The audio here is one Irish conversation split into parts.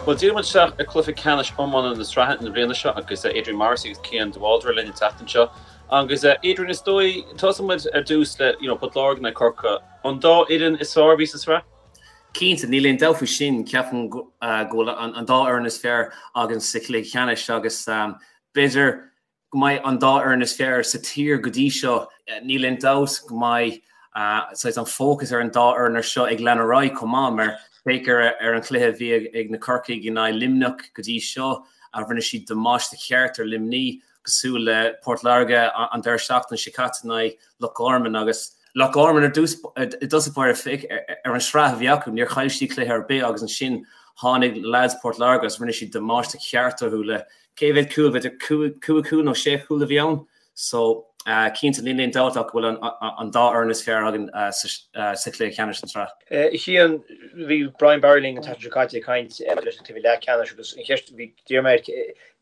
Bhuel, díreoidh muid isteach ar chluiche ceannais iomána na sraithe na bliana seo agus Adrian Morrissey agus Cian de Bhaldraithe linn an tseachtain seo. Agus Adrian, is dóigh, tosóidh muid ar dtús le, you know, Port Láirge in aghaidh Corcaigh, an dá fhoireann is fearr a bhí sa sraith? Cinnte, níl aon dabht faoi sin. Ceapaim go bhfuil an dá fhoireann is fearr againn sa chluiche ceannais agus b'fhéidir go mbeidh an dá fhoireann is fearr sa tír go dtí seo. Níl aon dabht go mbeidh saghas an fócas ar an dá fhoireann ar seo ag lean ar aghaidh chomh maith mar féach ar an chluiche a bhí ag na Corcaigh in aghaidh Luimneach go dtí seo, rinne siad damáiste ceart ar Luimní, cosúil le Port Láirge an deireadh seachtaine seo caite in aghaidh Loch Garman agus Loch Garman ar dtús i dtosach báire féach ar an sraith a bhí acu, níor chaill siad cluiche ar bith agus ansin tháinig leaids Port Láirge agus rinne siad damáiste ceart orthu le Cé mhéad cúl, b'fhéidir 5 chúl nó 6 chúl a bhí ann. So, cinnte, níl aon dabht ach go bhfuil an dá fhoireann is fearr againn sa chluiche ceannais den tsraith. A Chian, bhí Brian Barry linn an tseachtain seo caite ag caint maidir leis an cluiche leathcheannais agus an cheist a bhí d'iarr mé air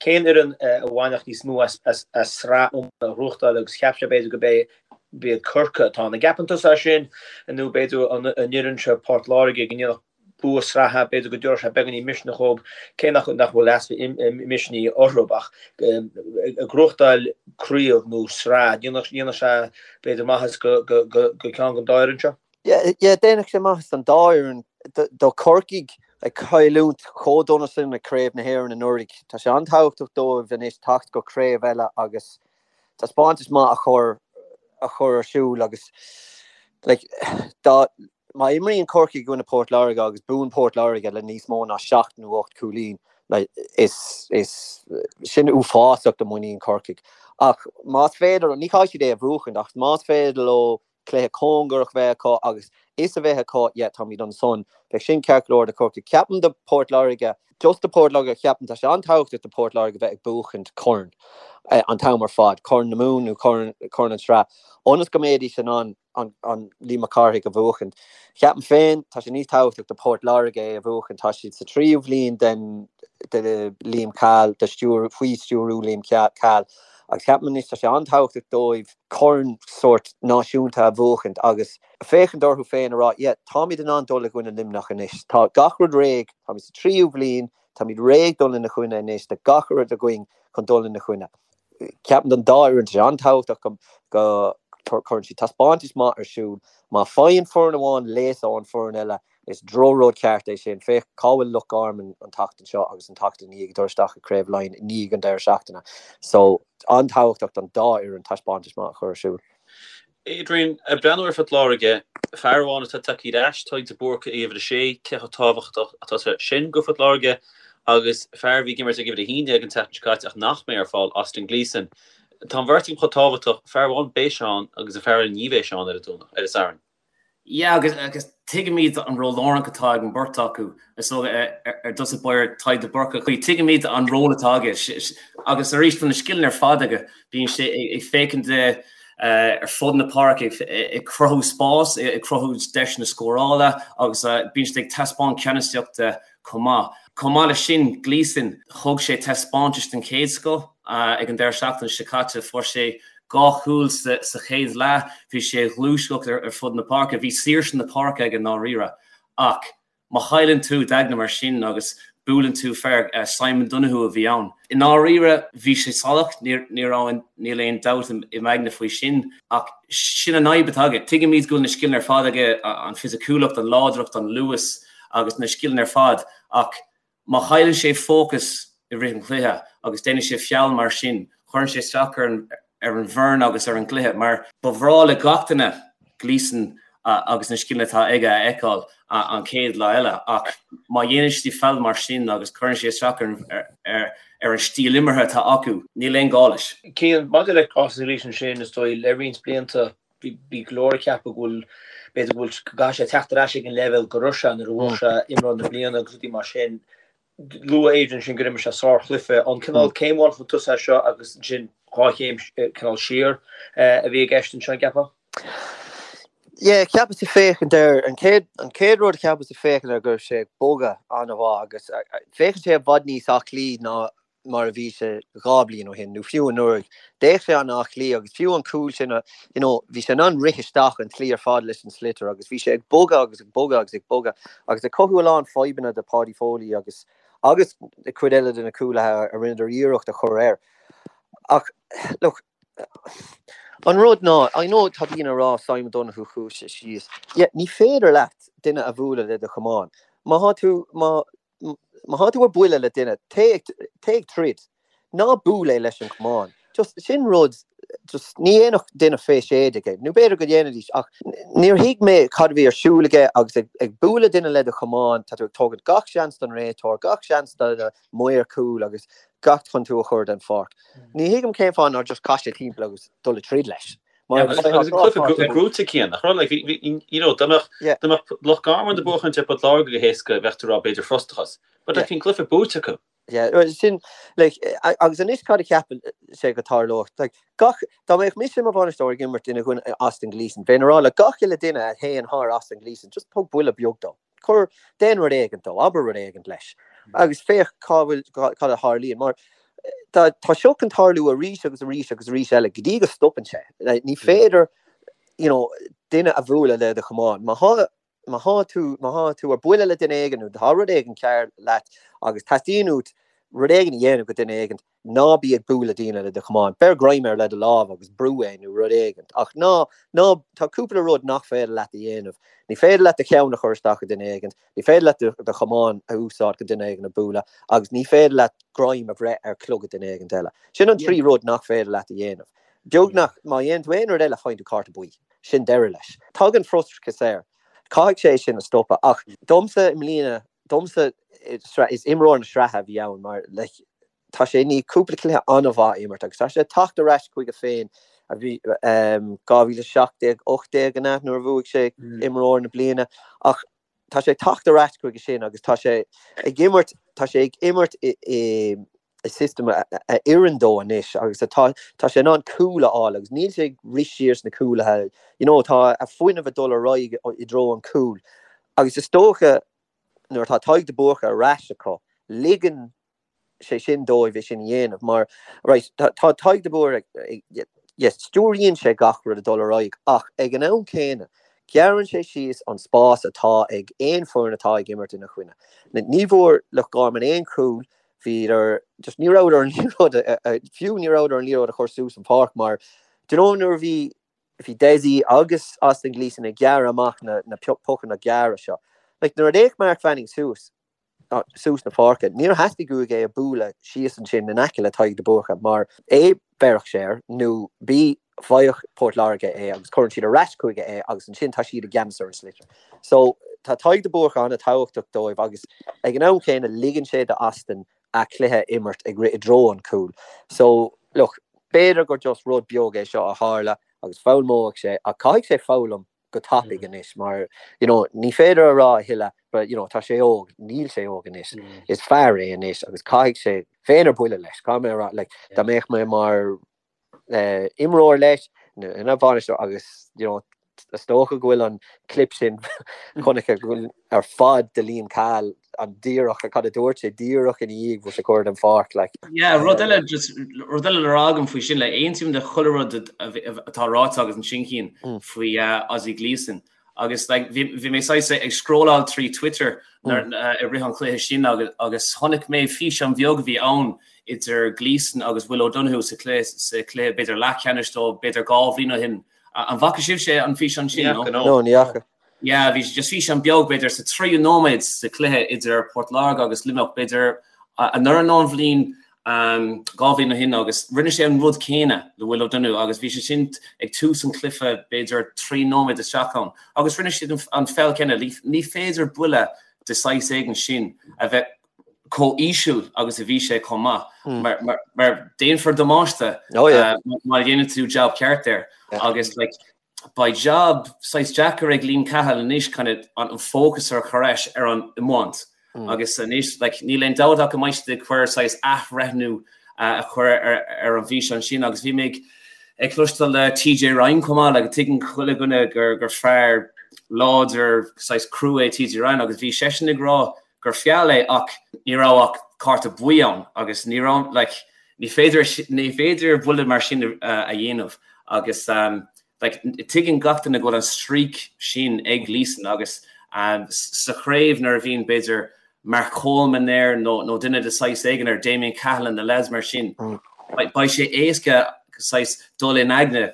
cén fhoireann a bhainfeadh níos mó as sraith iomána a ghnóthachtáil agus cheap sé b'fhéidir go b'iad Corcaigh atá ann. An gceapann tusa é sin nó b'fhéidir an fhoireann seo Port Láirge go ndéanfadh bua sraithe, b'fhéidir go dtabharfadh sé beagáinín misneach dhóibh, cé nach bhfuil easpa misnigh orthu, ach ag gnóthachtáil craobh nó sraith, dhéanfadh sé b'fhéidir maitheas do cheann den dá fhoireann seo. Yeah, déanfadh sé maitheas don dá fhoireann. Do Chorcaigh ag cailliúint chomh dona sin ag Craobh na hÉireann anuraidh, tá sé an-tábhachtach dóibh anois teacht go craobh eile agus taispeántas maith a chur a chur ar siúl agus like dá Má imríonn Corcaigh i gcoinne Port Láirge agus buann Port Láirge le níos mó ná 7 nó 8 cúilín, is sin uafásach do mhuinín Chorcaigh. Ach más féidir, ní chaithfidh siad é a bhuachaint, ach más féidir leo cluiche cóngarach bheith acu agus fhios a bheith acu, yeah, táimid ansan, bheadh sin ceart go leor do Chorcaigh. Ceapaim do Port Láirge, just do Port Láirge, ceapaim tá sé an-tábhachtach do Port Láirge bheith ag buachaint corn an t-am ar fad, Corn na Mumhan nó Corn an tSraith, ionas go mbeidís in ann an Liam Mac Cárthaigh a bhuachaint. Ceapaim féin, tá sé níos tábhachtach do Port Láirge é a bhuachaint. Tá siad sa tríú bhliain den de Liam Cahill, de stiúr, faoi stiúrú Liam Cahill agus ceapaim anois tá sé an-tábhachtach dóibh corn sórt náisiúnta a bhuachaint agus féachaint orthu féin a rá yeah, táimid in ann dul i gcoinne Luimneach anois. Tá gach rud réidh, táimid sa tríú bhliain, táimid réidh dul ina choinne anois, tá gach rud againn chun dul ina choinne. Ceapaim don dá fhoireann, tá sé an-tábhachtach go gcuireann siad taispeántas maith ar siúl. Má faigheann foireann amháin léasadh ón foireann eile, is drochrud ceart é sin. Féach cá bhfuil Loch Garman an tseachtain seo agus an tseachtain ina dhiaidh ag dul isteach i Craobh Laighean i ndiaidh an deireadh seachtaine. So, an-tábhachtach don dá fhoireann taispeántas maith a chur ar siúl. Adrian, ag breathnú ar Phort Láirge, fear amháin atá tagtha ar ais, Tadhg de Búrca ag uimhir 6, cé chomh tábhachtach atá sé sin go Phort Láirge agus fear a bhí ag imirt ag uimhir 11 an tseachtain seo caite ach nach mbeidh ar fáil, Austin Gleeson. Tá an bheirt acu chomh tábhachtach, fear amháin beidh sé ann agus an fear eile ní bheidh sé ann ar an Domhnach, ar an Satharn. Yeah agus agus tuigimid an ról lárnach atá ag an beirt acu. Is dócha ar dtús báire Tadhg de Búrca, tuigimid an ról atá aige agus arís tá na scileanna ar fad aige. Bíonn sé ag féachaint ar fud na páirce ag cruthú spás, ag cruthú deiseanna scórála agus bíonn sé ag taispeáint ceannasaíochta chomh maith. Chomh maith leis sin, Gleeson, thug sé taispeántas den chéad scoth ag an deireadh seachtaine seo caite. Fuair sé 2 chúl sa chéad leath, bhí sé ag gluaiseacht ar fud na páirce, bhí saoirse na páirce aige i ndáiríre. Ach má chailleann tú d'aigne mar sin agus buaileann tú fear, Simon Donoghue a bhí ann. I ndáiríre, bhí sé salach, ní raibh, níl aon dabht i m'aigne faoi sin. Ach sin an fhadhb atá aige. Tuigimid go bhfuil na scileanna ar fad aige, an fisiciúlacht, an láidreacht, an luas. agus na scileanna ar fad ach má chailleann sé fócas i rith an chluiche agus déanann sé feall mar sin, cuireann sé isteach ar an ar an bhfoireann agus ar an gcluiche mar ba bhreá le gach duine Gleeson agus na scileanna atá aige a fheiceáil an chéad lá eile ach má dhéanann sé feall mar sin agus cuireann sé isteach ar ar ar an stíl imeartha atá acu, níl aon ghá leis. Cian, maidir le Austin Gleeson sin, is dóigh, le roinnt blianta Bhí go leor ag ceapadh go bhfuil, b'fhéidir go bhfuil, go gcaithfidh sé teacht ar ais ag an leibhéal go raibh sé nuair a bhuaigh sé imreoir na bliana agus rudaí mar sin. Luaigh Adrian sin gur imir sé sárchluiche. An cineál céim amháin chun tosaigh é seo agus ansin dhá chéim cineál siar a bhí i gceist anseo, an gceapfá? Yeah, cheapas ag féachaint air, an chéad, an chéad rud a cheapas ag féachaint air go raibh sé ag bogadh an-mhaith agus féachann sé i bhfad níos aclaí ná mar a bhí sé 2 bliain ó shin, nó fiú anuraidh. D'fhéach sé an-aclaí agus fiú an cúl sin, you know, bhí sé in ann rith isteach an tslí ar fad leis an sliotar agus bhí sé ag bogadh agus ag bogadh agus ag bogadh agus ag cothú a lán fadhbanna do Paudie Foley agus. agus cuid eile de na cúlaithe a rinneadar iarracht a chur air. Ach look, an rud ná, I know tá daoine ag rá Simon Donoghue chuaigh sé síos. Yeah, ní féidir leat duine a bhualadh le do chamán. Má thá tú, má, má thá tú ar buile le duine, téigh, téigh ag troid. Ná buail é leis an chamán. Just, sin rud, just, ní dhéanfadh duine fé 16 é, nó b'fhéidir go ndéanfaidís, ach níor thuig mé cad a bhí ar siúl aige agus ag, ag bualadh duine le do chamán, tá tú ag tógaint gach seans don réiteoir, gach seans do na maoir cúil agus gach chun tú a chur den pháirc. Ní thuigim cén fáth nár just chaith sé timpeall agus dul ag troid leis. Mar agus an cluiche gnóite Cian, nach raibh, like, bhí, you know, dá mbeadh, dá mbeadh Loch Garman ag buachaint ar Port Láirge go héasca, bheadh tú ag rá b'fhéidir frustrachas. But like, bhí an cluiche buaite acu. Yeah, sin, like, agus anois cad a cheapann sé go tarlódh? Like, gach, dá mbeadh mise i mo bhainisteoir ag imirt ina gcoinne Austin Gleeson, bheinn ag rá le gach uile duine a théann thar Austin Gleeson, just thug buille beag dó. Cuir, déan rud éigint dó, abair rud éigint leis, agus féach cá bhfuil, cad a tharlaíonn. Mar tá, tá seo chun tarlú arís agus arís agus arís eile go dtí go stopann sé. Ní féidir, you know, duine a bhualadh le do chamán. Má thá, má thá tú, má thá tú ar buile le duine éigin nó tá rud éigin cearr leat agus teastaíonn uait rud éigin a dhéanamh go duine éigin, Ná bí ag bualadh daoine le do chamán. Beir greim air le do lámh agus brú é nó rud éigint. Ach ná, ná, tá cúpla rud nach féidir leat a dhéanamh. Ní féidir leat do cheann a chur isteach i duine éigint, ní féidir leat do, do chamán a úsáid chun duine éigin a bualadh agus ní féidir leat greim a bhreith ar chlogad duine éigint eile. Sin an trí rud nach féidir leat a dhéanamh. Beagnach, má dhéanann tú aon rud eile faigheann tú cárta buí. Sin deireadh leis. Tagann frustrachas air. Caithfidh sé sin a stopadh. Ach domsa i mbliana, domsa is imreoir na sraithe a bhí ann mar like, tá sé i ndiaidh cúpla cluiche an-mhaith a imirt agus tá sé ag teacht ar ais chuige féin a bhí um, 2017, 18 an ea nuair a bhuaigh sé mm. imreoir na bliana ach tá sé ag teacht ar ais chuige sin agus tá sé ag imirt tá sé ag imirt i, i, i system a, a oireann dó anois agus atá tá sé in ann cúl a fháil agus níl sé ag rith siar sna cúlaithe you know, tá a fuinneamh ag dul ar aghaidh i dtreo an cúl agus is dócha nuair atá Tadhg de Búrca ar ais acu ligeann sé sin dóibh é sin a dhéanamh mar right, tá Tadhg de Búrca yes, stiúraíonn sé gach rud ag dul ar aghaidh ach ag an am céanna gearrann sé síos an spás atá ag aon foireann atá ag imirt ina choinne. Ní bhfuair Loch Garman aon chúl bhíodar just ní rabhadar an liathróid fiú ní rabhadar an liathróid a chur suas an pháirc mar do you know nuair a bhí bhí Dessie agus Austin Gleeson ag gearradh amach na na pocanna gearra seo. Like nuair a d'fhéach Mark Fanning suas suas na páirce níor theastaigh uaidh é a bualadh síos ansin in aice le Tadhg de Búrca mar A bhéarfadh sé air nó B bhfaigheadh Port Láirge é agus cuireann siad ar ais chuige é agus ansin tá siad i gceannas ar an sliotar. So tá Tadhg de Búrca an-tábhachtach dóibh agus ag an am céanna ligeann sé do Austin a chluiche a imirt ag rith i dtreo an chúil. So look, b'fhéidir gur just rud beag é seo a tharla agus foghlaimeoidh sé ach caithfidh sé foghlaim go tapaidh anois mar you know ní féidir a rá a thuilleadh but you know tá sé óg, níl sé óg anois, is fear é anois agus caithfidh sé bheinn ar buile leis, caithfidh mé a rá like dá mbeadh mé mar imreoir leis nó ina bhainisteoir agus you know is dócha go bhfuil an clip sin chonaic ar fad de Liam Cahill an díreach cad a dúirt sé díreach ina dhiaidh bhfuil sé curtha den pháirc like. Yeah, rud eile just rud eile le rá agam faoi sin like aontaím le chuile rud atá ráite agat ansin Cian faoi Ozzie Gleeson agus like bhí bhí mé saghas ag scrolláil trí Twitter nuair i rith an chluiche sin agus agus chonaic mé físeán beag a bhí ann idir Gleeson agus Will O'Donoghue sa chluiche sa chluiche b'fhéidir leathcheannais dó b'fhéidir 2 bhliain ó shin. An bhfaca sibhse an físeán sin? No, no ní fhaca. Yeah, bhí just físeán beag b'fhéidir sa tríú nóiméad sa chluiche idir Port Láirge agus Luimneach b'fhéidir anuraidh nó an bhliain 2 bhliain ó shin agus rinne sé an rud céanna le Will O'Donoghue agus bhí sé sin ag tús an chluiche b'fhéidir 3 nóiméad isteach ann agus rinne siad an feall céanna. Ní féidir buille de saghas éigin sin a bheith chomh íseal agus a bhí sé chomh maith mar mar déanfar damáiste má dhéanann tú jab ceart air agus like beidh jab saghas deacair ag Liam Cahill anois kind of an fócas a chur ais ar an iomáint agus anois like níl aon dabht ach go mbeidh siad ag cur saghas athbhreithniú a chur ar ar an bhfíseán sin agus bhí mé ag ag cloisteáil le TJ Ryan chomh maith like tuigeann chuile dhuine gur gur fear láidir saghas crua é TJ Ryan agus bhí seisean ag rá gur feall é ach ní raibh ach cárta buí ann agus ní raibh like ní féidir ní féidir buille mar sin a dhéanamh agus um, like tuigeann gach duine go bhfuil an streak sin ag Gleeson agus um, sa chraobh nuair a bhíonn b'fhéidir. Mark Coleman air nó nó duine de saghas éigin air, Damien Cahalane, na lads mar sin, beidh sé éasca saghas dul in aigne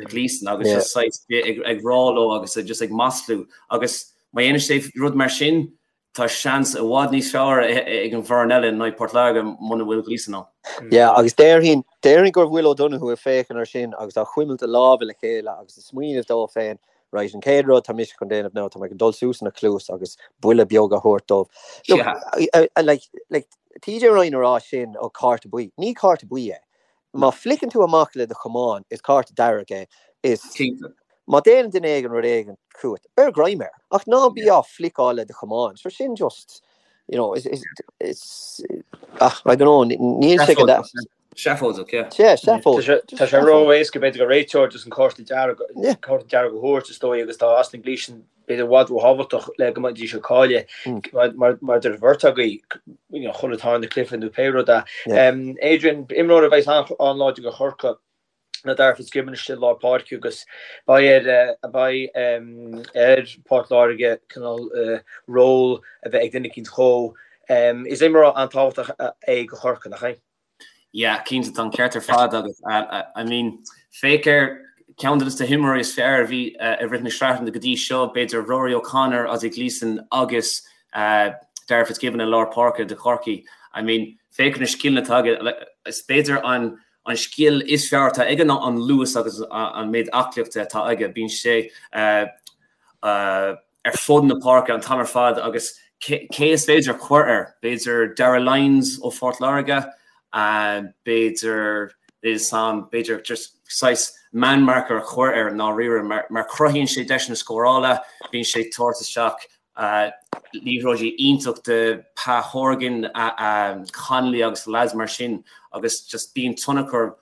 Gleeson agus just saghas ag rá leo agus just ag maslú agus má dhéanann sé rud mar sin, tá seans i bhfad níos fearr ag an bhfoireann eile in aghaidh Port Láirge muna bhfuil Gleeson ann. Yeah, agus déarfainn, déarfainn go bhfuil O'Donoghue ag féachaint ar sin agus á chuimilt a lámha le chéile agus ag smaoineamh dó féin, right, an chéad rud tá mise chun déanamh ná tá mé chun dul suas ina chluas agus buille beag a thabhairt dóibh. Look, like, like, TJ Ryan a rá sin ó cárta buí. Ní cárta buí é. Má fliceann tú amach le do chamán, is cárta dearg é. Is má déanann duine éigin rud éigin chugat, beir greim air. Ach ná bí á fliceáil le do chamán. So sin just, you know, is, is, is, ah, I don't know, níl sé go deas. Seafóideach, yeah. Yeah, seafóideach. Tá sé ró-éasca b'fhéidir do réiteoir just an cárta dearg, cárta dearg a thabhairt is dóigh agus tá Austin Gleeson b'fhéidir i bhfad róthábhachtach le go mbeidís ag cailleadh mar mar deir an bheirt agaibh you know chuile tarna cluiche nó pé rud é. Adrian, imreoir a bheas an-láidir do Chorcaigh ná Darragh Fitzgibbon istigh i lár páirce agus beidh ar beidh ar Port Láirge cineál ról a bheith ag duine eicínt dhó. Is imreoir an-tábhachtach é do Chorcaigh, nach é? Yeah, cinnte, tá an ceart ar fad agat. I mean, féach ar ceann de na himreoirí is fearr a bhí i rith na sraitheanna go dtí seo, b'fhéidir Rory O'Connor, Ozzy Gleeson agus Darragh Fitzgibbon i lár páirce do Chorcaigh. I mean, féach ar na scileanna atá aige. Is b'fhéidir an an scil is fearr atá aige ná an luas agus an méid aclaíochta atá aige. Bíonn sé ar fud na páirce an t-am ar fad agus cé is féidir a chur air? B'fhéidir Darragh Lyons ó Phort Láirge, b'fhéidir sam, b'fhéidir just saghas man marker a chur air i ndáiríre mar cruthaíonn sé deiseanna scórála, bíonn sé ag tabhairt isteach liathróidí iontach do Pa Horgan, Connolly agus lads mar sin agus just bíonn tionchar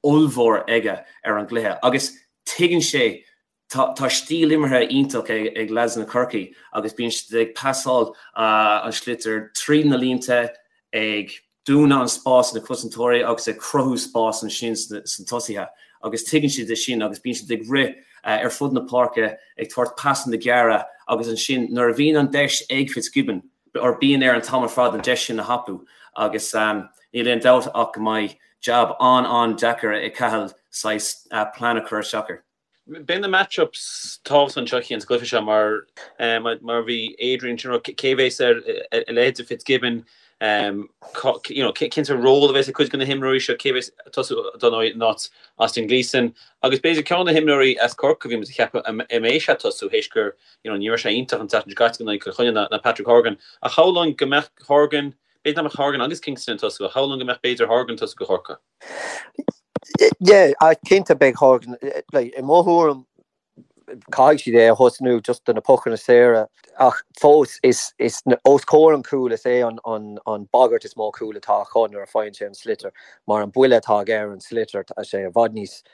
ollmhór aige ar an gcluiche agus tuigeann sé Tá stíl imeartha iontach ag leaideanna Chorcaí agus bíonn siad ag pasáil an sliotar tríd na línte, ag dúnadh an spás sna cosantóirí agus ag cruthú spás ansin sna tosaithe agus tuigeann siad é sin agus bíonn siad ag rith ar fud na páirce ag tabhairt pasanna gearra agus ansin nuair a bhíonn an deis ag Fitzgibbon or bíonn air an t-am ar fad an deis sin a thapú agus níl aon dabht ach go mbeidh jab an-an-deacair ag Cahill saghas plean a chur isteach air. Beidh na match-ups tábhachtach anseo Cian sa gcluiche seo mar mar bhí Adrian sin cé bhéas ar a leithéid de Fitzgibbon you know cén sórt ról a bheas ag cuid de na himreoirí seo cé bhéas ag tosú dar ndóigh in áit Austin Gleeson agus b'fhéidir ceann de na himreoirí as Corcaigh a bhí muid ag ceapadh an mbeidh sé ag tosú théis gur you know ní raibh sé iontach an tseachtain seo caite in aghaidh Chill Chainnigh ná Patrick Horgan ach shamhlóinn go mbeadh Horgan b'fhéidir nach mbeadh Horgan agus Kingston ag tosú ach shamhlóinn go mbeadh b'fhéidir Horgan ag tosú do Chorcaigh. Yeah, cinnte beidh Horgan, like, i mo thuairim, caithfidh siad é a thosnú just do na pocanna saora ach fós is, is os comhair an chúil is é an, an, an bagairt is mó cúil atá acu nuair a faigheann sé an sliotar mar an buille atá aige ar an sliotar tá sé i bhfad níos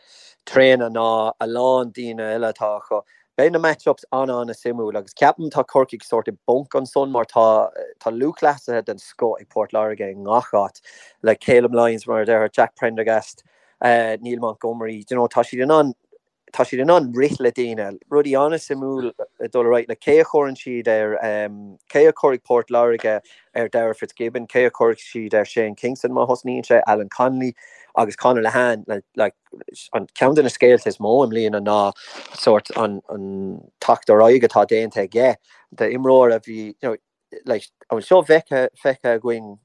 tréine ná a lán daoine eile atá acu. Beidh na match-ups an-an-suimiúil agus ceapaim tá Corcaigh sórt i bponc ansan mar tá tá lúthchleasaithe den scoth ag Port Láirge i ngach áit, like Calum Lyons mar a déarfá, Jack Prendergast, Neil Montgomery, do you know tá siad in ann tá siad in ann rith le daoine. Rudaí an-suimiúil ag dul ar aghaidh, like cé a chuireann siad ar cé a chuirfidh Port Láirge ar Darragh Fitzgibbon, cé a chuirfidh siad ar Shane Kingston má thosnaíonn sé, Alan Connolly agus Conor Lehane like An ceann de na scéalta is mó i mbliana ná sórt an teacht ar aghaidh atá déanta aige d'imreoir a bhí, you know, like, an bhfuil seo feicthe, feicthe againn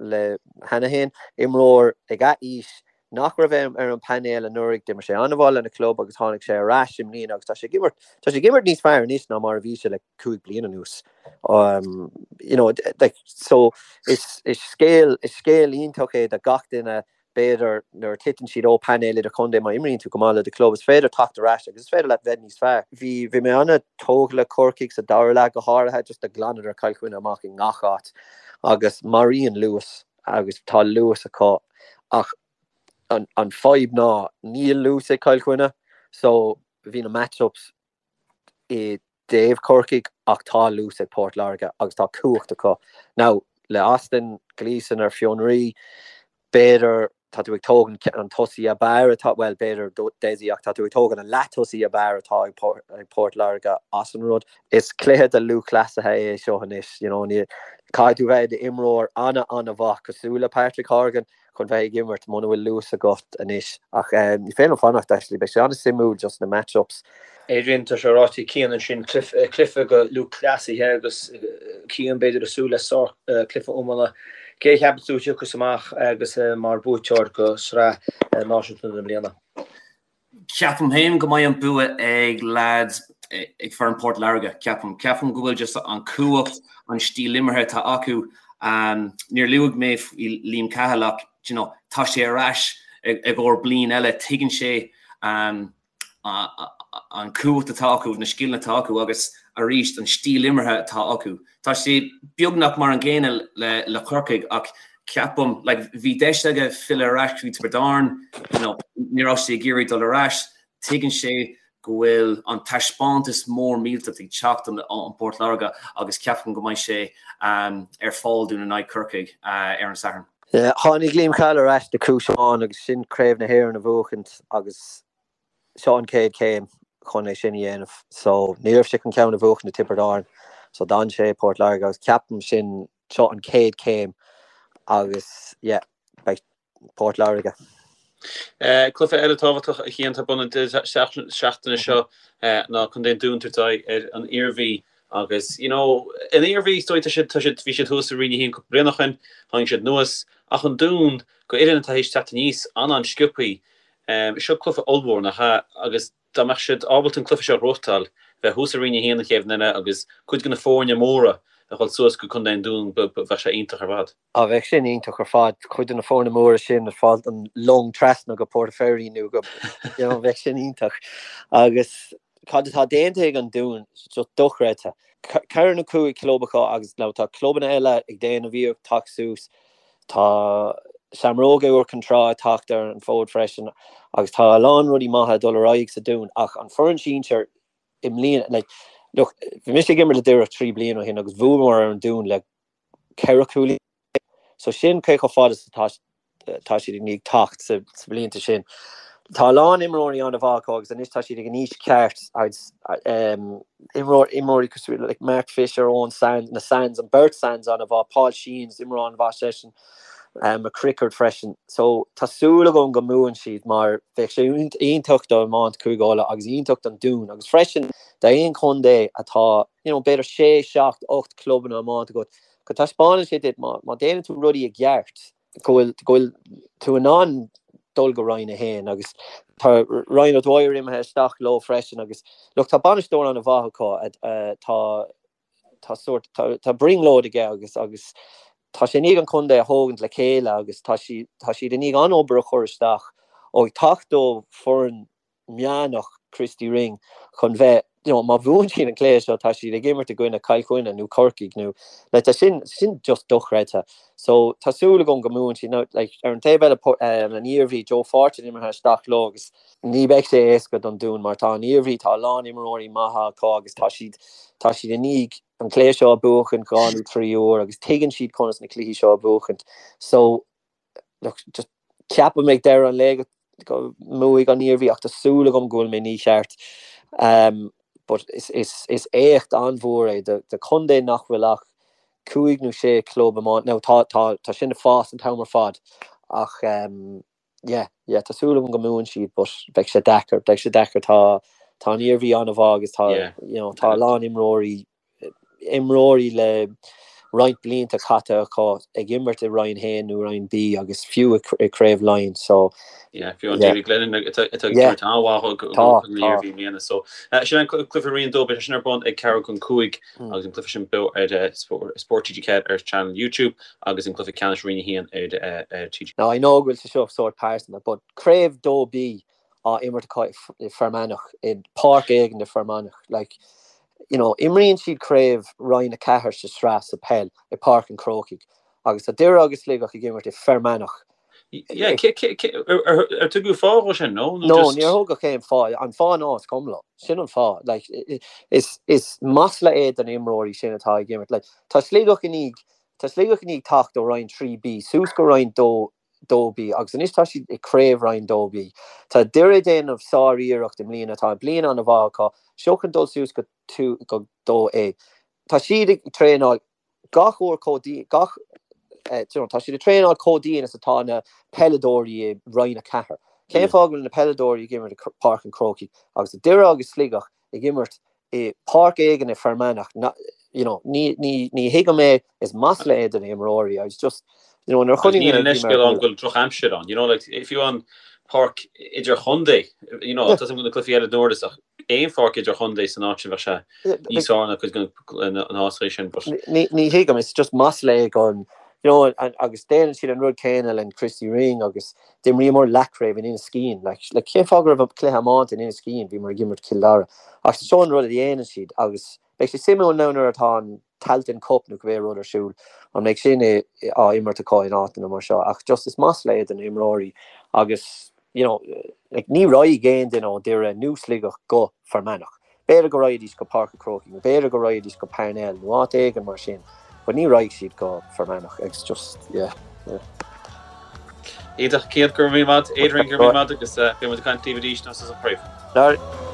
le cheana féin, imreoir ag a aois nach raibh ar an bpainéal anuraidh, d'imir sé an-mhaith lena chlub agus tháinig sé ar ais i mbliana agus tá sé ag imirt, tá sé ag imirt níos fearr anois ná mar a bhí sé le 5 bliana anuas. Um, you know, like, so is, is scéal, is scéal iontach é do gach duine B'fhéidir nuair a titeann siad ó painéal idirchontae, má imríonn tú go maith le do chlub, is féidir teacht ar ais agus is féidir leat bheith níos fearr. Bhí, bhí mé an-tógtha le Corcaigh sa dara leath go háirithe, just do ghlanadar Cill Chainnigh amach i ngach áit agus maraíonn luas agus tá luas acu ach an, an fadhb ná níl luas ag Cill Chainnigh so bhí na match-ups i dtaobh Chorcaigh ach tá luas ag Port Láirge agus tá cumhacht acu. Now, le Austin Gleeson ar fionraí, b'fhéidir. Tá tú ag tógaint an tosaí ab fhearr atá, bhuel, b'fhéidir Dessie ach tá tú ag tógaint an leath-tosaí ab fhearr atá ag Port Láirge as an rud. Is cluiche do lúthchleasaithe é seo anois, you know, ní, caithfidh tú bheith i d'imreoir ana-ana-mhaith cosúil le Patrick Horgan chun bheith ag imirt muna bhfuil luas agat anois. Ach ní féidir liom fanacht actually, beidh sé an-suimiúil just na match-ups. Adrian, tá sé ráite ag Cian ansin, cluiche do lúthchleasaithe agus Cian b'fhéidir ag súil le sár cluiche iomána. Cé a cheapann tú a thiocfas amach agus mar buaiteoir go sraith náisiúnta na bliana? Ceapaim féin go mbeidh an bua ag leaids ag foireann Port Láirge, ceapaim. Ceapaim go bhfuil just an cumhacht, an stíl imeartha atá acu. Níor luaigh mé faoi Liam Cahill ach, you know, tá sé ar ais i gcomhair bliain eile, tuigeann sé an cumhacht atá acu, na scileanna atá acu agus arís an stíl imeartha atá acu. Tá sé beagnach mar an gcéanna le le Corcaigh ach ceapaim, like, bhí deis aige filleadh ar ais go dtí Tiobraid Árann, you know, ní raibh sé ag iarraidh dul ar ais, tuigeann sé go bhfuil an taispeántas mór millteach ag teacht ón Port Láirge agus ceapaim go mbeidh sé ar fáil dúinn in aghaidh Corcaigh ar an Satharn. Tháinig Liam Cahill ar ais do chúis amháin agus sin Craobh na hÉireann a bhuachaint agus seo an chéad chéim chun é sin a dhéanamh. So ní raibh sé chun ceann a bhuachaint i Tiobraid Árann so d'fhan sé i Port Láirge agus ceapaim sin seo an chéad chéim agus yeah beidh Port Láirge. Cluiche eile tábhachtach a Chian atá ar bun an deireadh seachtaine seo ná Contae an Dúin ag tabhairt aghaidh ar an Iarmhí agus you know an Iarmhí is dóigh tá siad tá siad bhí siad thuas i Roinn 1 cúpla bliain ó shin, tháinig siad anuas ach an Dún go fhoireann atá théis teacht aníos an-an-sciobthaí. Seo cluiche ollmhór nach ea agus dá mbeadh siad ábalta an cluiche seo a ghnóthachtáil, bheith thuas i Roinn 1 an chéad bhliain eile agus cuid de na foirne móra a dhul suas go Contae an Dúin bheadh sé iontach ar fad. Á, bheadh sin iontach ar fad, cuid de na foirne móra sin ag fáil an long trasna go Port Fairy nó go, you know, bheadh sin iontach. Agus cad atá déanta ag an Dún, just dochreidte. Ceithre nó 5 club acu agus now tá clubanna eile ag déanamh iarracht teacht suas, tá Seamróga Iúr Cinn Trá ag teacht ar an bhfód freisin agus tá a lán rudaí maithe ag dul ar aghaidh sa Dún ach an foireann sinsir i mbliana, like, look, bhí mise ag imirt le Doire 3 bliana ó shin agus bhuamar ar an Dún le 14 cúilín. So sin cé chomh fada is atá tá siad i ndiaidh teacht sa blianta sin. Tá a lán imreoirí an-mhaith acu agus anois tá siad ag an aois ceart agus imreoir imreoirí cosúil le Mark Fisher, Owen Sands, na Sands, an beirt Sands an-mhaith, Paul Sheehan, imreoir an-mhaith seisean, McCrickard freisin. So tá súil agam go mbuann siad mar bheadh sé iontach do iomáint Chúige Uladh agus iontach don Dún agus freisin d'aon chontae atá you know, b'fhéidir 6, 7, 8 clubanna iomáint agat, go taispeánann sé duit má, má déanann tú rudaí i gceart, go bhfuil, go bhfuil tú in ann dul go Roinn 1 agus tá Ryan O'Dwyer imithe isteach leo freisin agus look, tá bainisteoir an-mhaith acu, tá, tá sórt, tá, tá brionglóid aige agus, agus tá sé i ndiaidh an contae a thógaint le chéile agus tá sí, tá siad i ndiaidh an-obair a chur isteach ó ag teacht ó foireann meánach Christy Ring chun bheith, you know, má bhuann siad an cluiche seo tá siad ag imirt i gcoinne Cill Chainnigh nó Corcaigh nó like tá sin sin just dochreidte. So tá súil agam go mbuann siad. Now like ar an taobh eile um, an Iarmhí Joe Fortune imithe isteach leo agus ní beidh sé éasca don Dún mar tá an Iarmhí tá a lán imreoirí maithe acu agus tá siad tá siad i ndiaidh an cluiche seo a buachan dhá nó trí uair agus tuigeann siad conas na cluichí seo a bhuachaint. So look, just ceapaim ag deireadh an lae go go mbuafaidh an Iarmhí ach tá súil agam go bhfuil mé mícheart. Um, but is, is, is éacht an-mhór é do, do chontae nach bhfuil ach cúig nó sé club iomána. Now, tá, tá, tá sin ag fás an t-am ar fad ach um, yeah, yeah, tá súil agam go mbuann siad but beidh sé deacair, beidh sé deacair tá tá an Iarmhí an-mhaith agus tá, yeah. you know, tá a lán imreoirí imreoirí le roinnt blianta caite acu ag imirt i Roinn 1 nó Roinn B agus fiú i Craobh Laighean so Yeah, fiú an David Glennon atá ag imirt an-mhaith don Iarmhí i mbliana. So sin an cluiche Roinn 2, beidh sé sin ar bun ag ceathrú chun 5 agus an cluiche sin beo ar Spórt TG4 ar channel YouTube agus an cluiche ceannais Roinn 1 ar TG. Now I know go bhfuil sé seo sórt pearsanta but Craobh 2B á imirt acu i Fear Manach, i páirc éigin i Fear Manach. Like, you know, imríonn siad craobh Roinn 4 sa sraith sa peil i Páirc an Chrócaigh agus tá Doire agus Sligeach ag imirt i Fear Manach. Yeah, ar tugadh fáth dhó sin, no? No, níor thugadh aon fáth. An fáth ná is cuma leo. Sin an fáth. Like, is, is masla é do na imreoirí sin atá ag imirt. Like, tá Sligeach i ndiaidh, tá Sligeach i ndiaidh teacht ó Roinn 3B suas go Roinn 2. 2B agus anois tá siad i Craobh Roinn 2B. Tá Doire ag déanamh sár-iarracht i mbliana, tá bliain an-mhaith acu, seo chun dul suas go go 2A. Tá siad ag traenáil gach uair chomh dian, gach, you know, tá siad ag traenáil chomh dian is atá na peileadóirí i Roinn 4. Cén fáth go bhfuil na peileadóirí ag imirt i Páirc an Chrócaigh agus Doire agus Sligeach ag imirt i páirc éigin i Fear Manach, you know, ní, ní, ní thuigim é, is masla é do na himreoirí, it's just, you know, nuair a chonaic mé Níl an leithscéal ann go bhfuil drochaimsir ann, you know, like, fiú an páirc idirchontae, you know, tá na cluichí eile dúradh ach aon pháirc idirchontae san áit sin bheadh sé níos fearr ná cuid de na háiteacha sin, but. Ní, ní thuigim, it's just masla é don, you know, agus déanann siad an rud céanna le Christy Ring agus D'imríomar leathchraobh in Inis Caoin. Like, like, cén fáth go raibh cluiche iomáint in Inis Caoin? Bhíomar ag imirt Cill Dara. Ach seo an rud a dhéanann siad agus beidh sé suimiúil now nuair atá an Tailteann Cup nó cibé rud ar siúl, an mbeidh sin á imirt acu in áiteanna mar seo. Ach just is masla é do na himreoirí agus, you know, like, ní raghaidh aon duine ó Doire nó Sligeach go Fear Manach. B'fhéidir go raghaidís go Páirc an Chrócaigh nó b'fhéidir go raghaidís go Parnell nó áit éigin mar sin but ní raghaidh siad go Fear Manach it's just yeah yeah. Iontach, Cian, go raibh míle maith, Adrian, go raibh míle maith agus beidh muid ag caint libh arís nuair a thosaíos an chraobh.